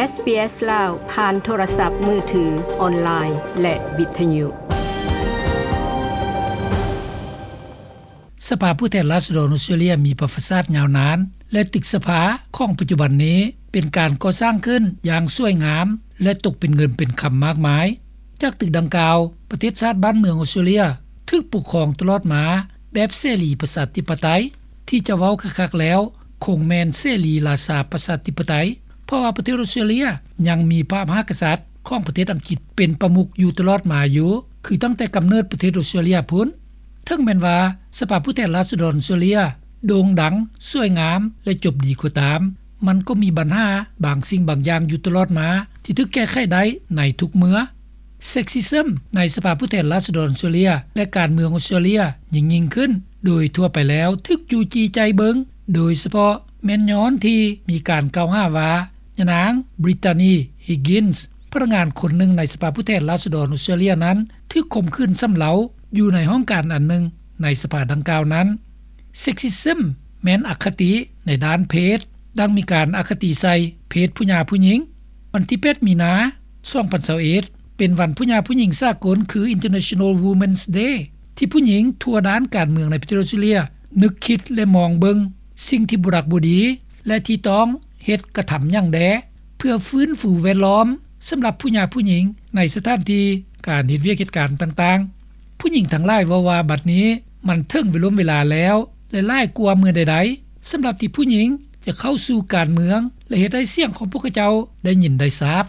ເອສ ບີ ເອສ ລາວ ຜ່ານໂທລະສັບມືຖື, ອອນລາຍ ແລະ ວິທະຍຸ. ສະພາຜູ້ແທນລາຊະດອນອົດສະຕຣາເລຍມີປະຫວັດສາດຍາວນານ ແລະ ຕຶກສະພາຂອງປັດຈຸບັນນີ້ເປັນການກໍ່ສ້າງຂຶ້ນຢ່າງສວຍງາມ ແລະ ຕົກເປັນເງິນເປັນຄຳມາກມາຍ. ຈາກຕຶກດັ່ງກ່າວ, ປະເທດຊາດບ້ານເມືອງອົດສະຕຣາເລຍຖືກປົກຄອງຕະຫຼອດມາແບບເສລີປະຊາທິປະໄຕ, ທີ່ຈະເວົ້າຄັກໆແລ້ວ ຄົງແມ່ນເສລີລາຊາປະຊາທິປະໄຕ, ເພາະວ່າປະເທດອົດສະຕຣາເລຍຍັງມີພະມະຫາກະສັດຂອງປະເທດອັງກິດເປັນປະມຸກຢູ່ຕະຫຼອດມາຢູ່, ຄືຕັ້ງແຕ່ກຳເນີດປະເທດອົດສະຕຣາເລຍພຸ້ນ. ເຖິງແມ່ນວ່າສະພາຜູ້ແທນລາຊະດອນອົດສະຕຣາເລຍໂດ່ງດັງ, ສວຍງາມ ແລະ ຈົບດີກໍຕາມ, ມັນກໍມີບັນຫາບາງສິ່ງບາງຢ່າງຢູ່ຕະຫຼອດມາ ທີ່ຖືກແກ້ໄຂໄດ້ໃນທຸກເມື່ອ. ເຊັກຊິຊຶມໃນສະພາຜູ້ແທນລາຊະດອນອົດສະຕຣາເລຍ ແລະ ການເມືອງອົດສະຕຣາເລຍຍິ່ງໆຂຶ້ນ ໂດຍທົ່ວໄປແລ້ວຖືກຈູ້ຈີ້ໃຈເບິ່ງ, ໂດຍສະເພາະແມ່ນຍ້ອນທີ່ມີການກ່າວຫາວ່າ ຍານາງ Brittany Higgins ພະນັກງານຄົນໜຶ່ງໃນສະພາຜູ້ແທນລາຊະດອນອົດສະຕຣາເລຍນັ້ນ ຖືກຂົ່ມຂືນຊຳເລົາຢູ່ໃນຫ້ອງການອັນໜຶ່ງໃນສະພາດັ່ງກ່າວນັ້ນ. ເຊັກຊິຊຶມແມ່ນອະຄະຕິໃນດ້ານເພດ, ດັ່ງມີການອະຄະຕິໃສ່ເພດຜູ້ຫຍ່າຜູ້ຍິງ. ວັນທີແປດ ມີນາ ສອງພັນຊາວເອັດ ເປັນວັນຜູ້ຫຍ່າຜູ້ຍິງສາກົນ ຄື International Women's Day ທີ່ຜູ້ຍິງທົ່ວດ້ານການເມືອງໃນປະເທດອົດສະຕຣາເລຍນຶກຄິດ ແລະ ມອງເບິ່ງສິ່ງທີ່ບໍ່ດັກບໍ່ດີ ແລະ ທີ່ຕ້ອງເຮັດກະທຳຫຍັງແດ່ ເພື່ອຟື້ນຟູແວດລ້ອມສຳລັບຜູ້ຫຍ່າຜູ້ຍິງໃນສະຖານທີ່ການເຮັດວຽກເຮັດການຕ່າງໆ. ຜູ້ຍິງທັງຫຼາຍເວົ້າວ່າ ບັດນີ້ມັນເຖິງເວລົມເວລາແລ້ວ ແລະ ຫຼາຍກວ່າເມື່ອໃດໆ ສຳລັບທີ່ຜູ້ຍິງຈະເຂົ້າສູ່ການເມືອງ ແລະ ເຮັດໃຫ້ສຽງຂອງພວກເຂົາເຈົ້າໄດ້ຍິນໄດ້ຊາບ.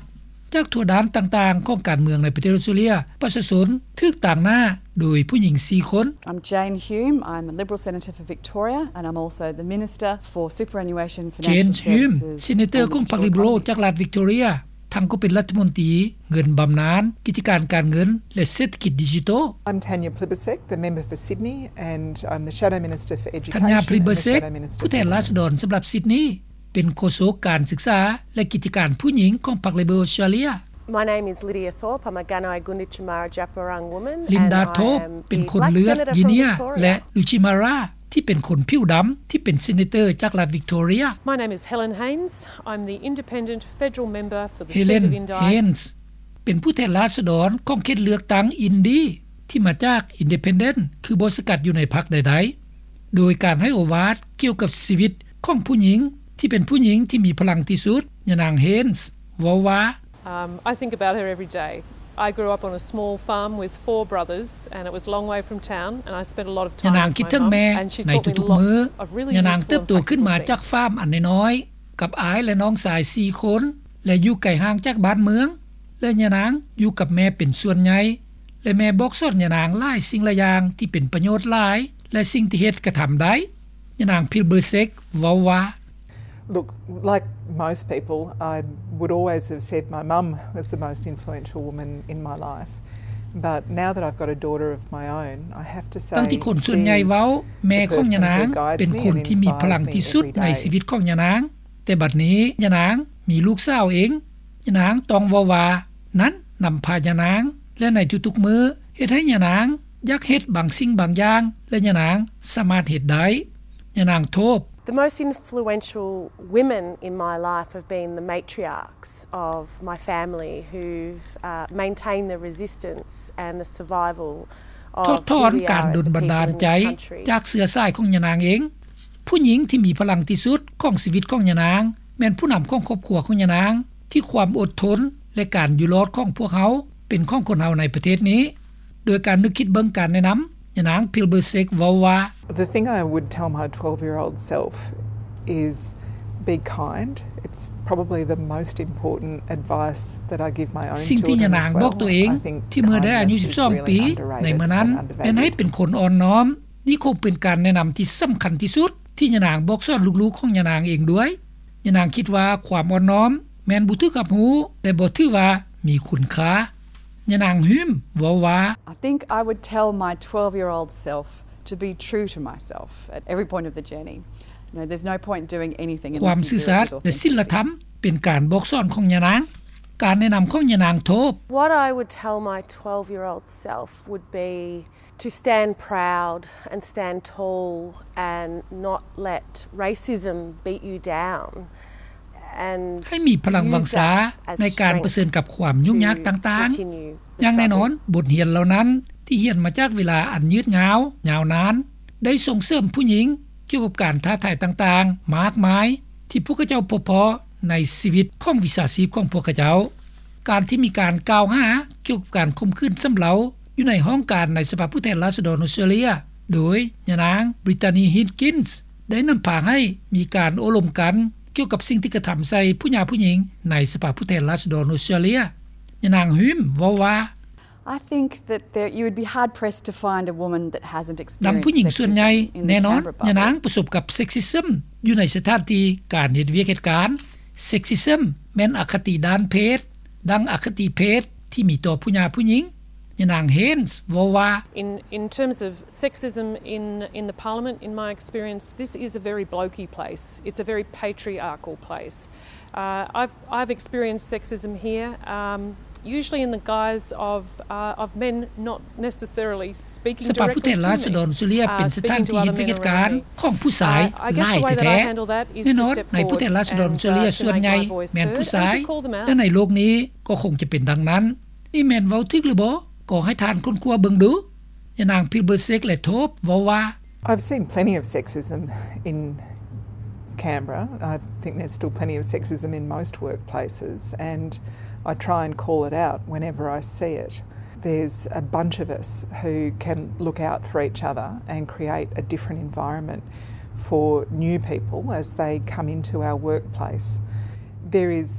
ຈາກທົ່ວດ້ານຕ່າງໆຂອງການເມືອງໃນປະເທດອົດສະຕຣາເລຍ, ປະຊາຊົນຖືກຕາງໜ້າໂດຍຜູ້ຍິງສີ່ຄົນ. I'm Jane Hume. I'm a Liberal Senator for Victoria and I'm also the Minister for Superannuation, Financial Services and Withdrawal. Jane Hume, ເຊເນເຕີຂອງພັກ Liberal ຈາກລັດ Victoria, ທັງກໍເປັນລັດຖະມົນຕີເງິນບຳນານ, ກິດຈະການການເງິນ ແລະ ເສດຖະກິດດິຈິໂຕ. I'm Tanya Plibersek, the member for Sydney, and I'm the Shadow Minister for Education and the Shadow Minister for Women. Tanya Plibersek, ຜູ້ແທນລາຊະດອນສຳລັບຊິດນີ, ເປັນໂຄສົກການສຶກສາ ແລະ ກິດຈະການຜູ້ຍິງຂອງພັກ Liberal Australia. My name is Lydia Thorpe. I'm a Ganai Gunditjmara Djab Wurrung woman. Linda Thorpe ເປັນຄົນເລືອດ Yinnya ແລະ Gunditjmara ທີ່ເປັນຄົນຜິວດຳ ທີ່ເປັນເຊເນເຕີຈາກລັດ Victoria. My name is Helen Haines. I'm the independent federal member for the seat of Indi. Helen Haines ເປັນຜູ້ແທນລາຊະດອນຂອງເຂດເລືອກຕັ້ງ Indi ທີ່ມາຈາກ Independent ຄືບໍ່ສັງກັດຢູ່ໃນພັກໃດໆ. ໂດຍການໃຫ້ໂອວາດກ່ຽວກັບຊີວິດຂອງຜູ້ຍິງທີ່ເປັນຜູ້ຍິງທີ່ມີພະລັງທີ່ສຸດ, ຍານາງ Haines ເວົ້າວ່າ, Um, I think about her every day. I grew up on a small farm with four brothers and it was a long way from town and I spent a lot of time with my mum and she taught me lots of really useful and practical things. ຍານາງຄິດເຖິງແມ່ໃນທຸກໆມື້. ຍານາງເຕີບໂຕຂຶ້ນມາຈາກຟາມອັນນ້ອຍໆ ກັບອ້າຍ ແລະ ນ້ອງຊາຍສີ່ຄົນ ແລະ ຢູ່ໄກຫ່າງຈາກບ້ານເມືອງ ແລະ ຍານາງຢູ່ກັບແມ່ເປັນສ່ວນໃຫຍ່ ແລະ ແມ່ບອກສອນຍານາງຫຼາຍສິ່ງຫຼາຍຢ່າງທີ່ເປັນປະໂຫຍດຫຼາຍ ແລະ ສິ່ງທີ່ເຮັດກະທຳໄດ້. ຍານາງ Plibersek ເວົ້າວ່າ, Look, like most people, I would always have said my mum was the most influential woman in my life. But now that I've got a daughter of my own, I have to say, ດັ່ງທີ່ຄົນສ່ວນໃຫຍ່ເວົ້າ, ແມ່ຂອງຍານາງເປັນຄົນທີ່ມີພະລັງທີ່ສຸດໃນຊີວິດຂອງຍານາງ. ແຕ່ບັດນີ້ຍານາງມີລູກສາວເອງ. ຍານາງຕ້ອງເວົ້າວ່າ ນັ້ນນຳພາຍານາງ ແລະ ໃນທຸກໆມື້ເຮັດໃຫ້ຍານາງຢາກເຮັດບາງສິ່ງບາງຢ່າງ ແລະ ຍານາງສາມາດເຮັດໄດ້. ຍານາງໂທບ. The most influential women in my life have been the matriarchs of my family who've, uh, maintained the resistance and the survival of who we are as a people in this country. ຖອດຖອນການດົນບັນດານໃຈຈາກເຊື້ອສາຍຂອງຍານາງເອງ. ຜູ້ຍິງທີ່ມີພະລັງທີ່ສຸດຂອງຊີວິດຂອງຍານາງ ແມ່ນຜູ້ນຳຂອງຄອບຄົວຂອງຍານາງ ທີ່ຄວາມອົດທົນ ແລະ ການຢູ່ລອດຂອງພວກເຮົາເປັນຂອງຄົນເຮົາໃນປະເທດນີ້. ໂດຍການນຶກຄິດເບິ່ງການແນະນຳ, ຍານາງ Plibersek ເວົ້າວ່າ, The thing I would tell my twelve-year-old self is be kind. It's probably the most important advice that I give my own children as well. ສິ່ງທີ່ຍານາງບອກຕົວເອງທີ່ເມື່ອໄດ້ອາຍຸສິບສອງປີ ໃນເມື່ອນັ້ນ ແມ່ນໃຫ້ເປັນຄົນອ່ອນນ້ອມ. ນີ້ຄົງເປັນການແນະນຳທີ່ສຳຄັນທີ່ສຸດທີ່ຍານາງບອກສອນລູກໆຂອງຍານາງເອງດ້ວຍ. ຍານາງຄິດວ່າຄວາມອ່ອນນ້ອມແມ່ນບໍ່ຖືກຮັບຮູ້ ແລະ ບໍ່ຖືວ່າມີຄຸນຄ່າ. ຍານາງ Hume ເວົ້າວ່າ, I think I would tell my twelve-year-old self to be true to myself at every point of the journey. You know, there's no point doing anything unless you do it with authenticity. ຄວາມຊື່ສັດ ແລະ ສິນລະທຳເປັນການບອກສອນຂອງຍານາງ. ການແນະນຳຂອງຍານາງໂທບ. What I would tell my twelve-year-old self would be to stand proud and stand tall and not let racism beat you down. ໃຫ້ມີພະລັງວັງຊາໃນການປະເຊີນກັບຄວາມຫຍຸ້ງຍາກຕ່າງໆ. ຢ່າງແນ່ນອນ, ບົດຮຽນເຫຼົ່ານັ້ນທີ່ຮຽນມາຈາກເວລາອັນຍືດຍາວ, ຍາວນານ ໄດ້ສົ່ງເສີມຜູ້ຍິງກ່ຽວກັບການທ້າທາຍຕ່າງໆມາກມາຍ ທີ່ພວກເຂົາເຈົ້າພົບພໍ້ໃນຊີວິດຂອງວິຊາຊີບຂອງພວກເຂົາເຈົ້າ. ການທີ່ມີການກ່າວຫາກ່ຽວກັບການຂົ່ມຂືນຊຳເລົາຢູ່ໃນຫ້ອງການໃນສະພາຜູ້ແທນລາຊະດອນອົດສະຕຣາເລຍ ໂດຍຍານາງ Brittany Higgins ໄດ້ນຳພາໃຫ້ມີການໂອ້ລົມກັນກ່ຽວກັບສິ່ງທີ່ກະທຳໃສ່ຜູ້ຫຍາຜູ້ຍິງໃນສະພາຜູ້ແທນລາຊະດອນອົດສະຕຣາເລຍ. ຍານາງ Hume ເວົ້າວ່າ I think that there, you would be hard pressed to find a woman that hasn't experienced sexism in Canberra. ດັ່ງຜູ້ຍິງສ່ວນໃຫຍ່, ແນ່ນອນ, ຍານາງປະສົບກັບ sexism ຢູ່ໃນສະຖານທີ່ການເຮັດວຽກເຮັດການ. Sexism ແມ່ນອະຄະຕິດ້ານເພດ, ດັ່ງອະຄະຕິເພດທີ່ມີຕໍ່ຜູ້ຫຍາຜູ້ຍິງ. ຍານາງ Haynes ເວົ້າວ່າ In, in terms of sexism in, in the parliament, in my experience, this is a very blokey place. It's a very patriarchal place. Uh, I've, I've experienced sexism here, um, usually in the guise of, uh, of men not necessarily speaking directly to me, uh, speaking to other men around me. ສະພາຜູ້ແທນລາຊະດອນອົດສະຕຣາເລຍເປັນສະຖານທີ່ເຮັດວຽກເຮັດການຂອງຜູ້ຊາຍຫຼາຍແທ້ໆ. ແນ່ນອນ, ໃນຜູ້ແທນລາຊະດອນອົດສະຕຣາເລຍສ່ວນໃຫຍ່ແມ່ນຜູ້ຊາຍ ແລະ ໃນໂລກນີ້ກໍຄົງຈະເປັນດັ່ງນັ້ນ. ນີ້ແມ່ນເວົ້າຖືກຫຼືບໍ່? ກໍໃຫ້ທ່ານຄົ້ນຄວ້າເບິ່ງດູ. ຍານາງ Plibersek ແລະ Tope ເວົ້າວ່າ I've seen plenty of sexism in Canberra. I think there's still plenty of sexism in most workplaces, and I try and call it out whenever I see it. There's a bunch of us who can look out for each other and create a different environment for new people as they come into our workplace. There is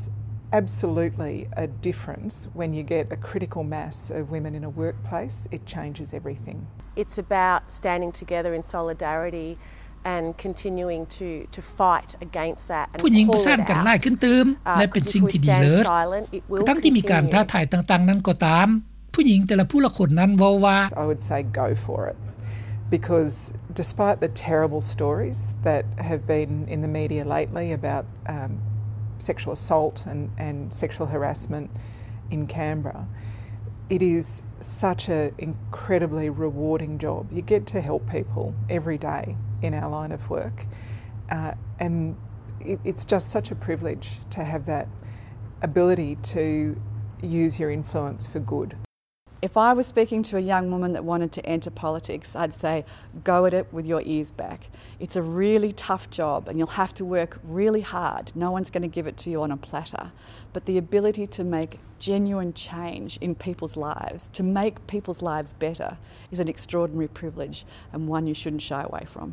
absolutely a difference when you get a critical mass of women in a workplace. It changes everything. It's about standing together in solidarity and continuing to, to fight against that and call it out. ຜູ້ຍິງປະສານກັນຫຼາຍຂຶ້ນຕື່ມ ແລະ ເປັນສິ່ງທີ່ດີເລີດ. ກະທັ່ງທີ່ມີການທ້າທາຍຕ່າງໆນັ້ນກໍຕາມ, ຜູ້ຍິງແຕ່ລະຜູ້ລະຄົນນັ້ນເວົ້າວ່າ I would say go for it, because despite the terrible stories that have been in the media lately about, um, sexual assault and, and sexual harassment in Canberra, it is such an incredibly rewarding job. You get to help people every day in our line of work, uh, and it, it's just such a privilege to have that ability to use your influence for good. If I was speaking to a young woman that wanted to enter politics, I'd say, go at it with your ears back. It's a really tough job and you'll have to work really hard. No one's gonna give it to you on a platter. But the ability to make genuine change in people's lives, to make people's lives better, is an extraordinary privilege and one you shouldn't shy away from.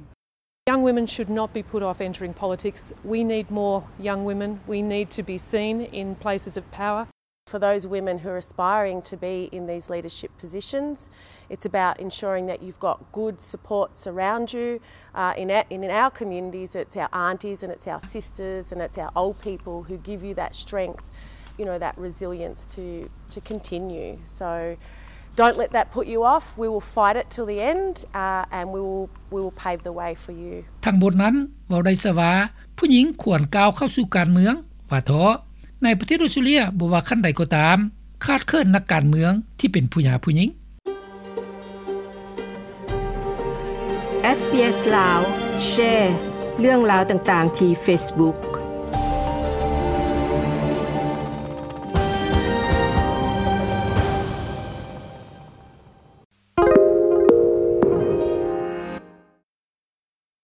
Young women should not be put off entering politics. We need more young women. We need to be seen in places of power. For those women who are aspiring to be in these leadership positions, it's about ensuring that you've got good supports around you. Uh, in, in our communities, it's our aunties and it's our sisters and it's our old people who give you that strength, you know, that resilience to, to continue. So, don't let that put you off. We will fight it till the end, uh, and we will, we will pave the way for you. ທັງໝົດນັ້ນເວົ້າໄດ້ຊະວ່າ ຜູ້ຍິງຄວນກ້າວເຂົ້າສູ່ການເມືອງວ່າເທາະ. ໃນປະເທດອົດສະຕຣາເລຍ ບໍ່ວ່າຂັ້ນໃດກໍຕາມ, ຂາດເຂີນນັກການເມືອງທີ່ເປັນຜູ້ຫຍາຜູ້ຍິງ. ເອສ ບີ ເອສ ລາວ ແຊເລື່ອງລາວຕ່າງໆທີ່ເຟສບຸກ.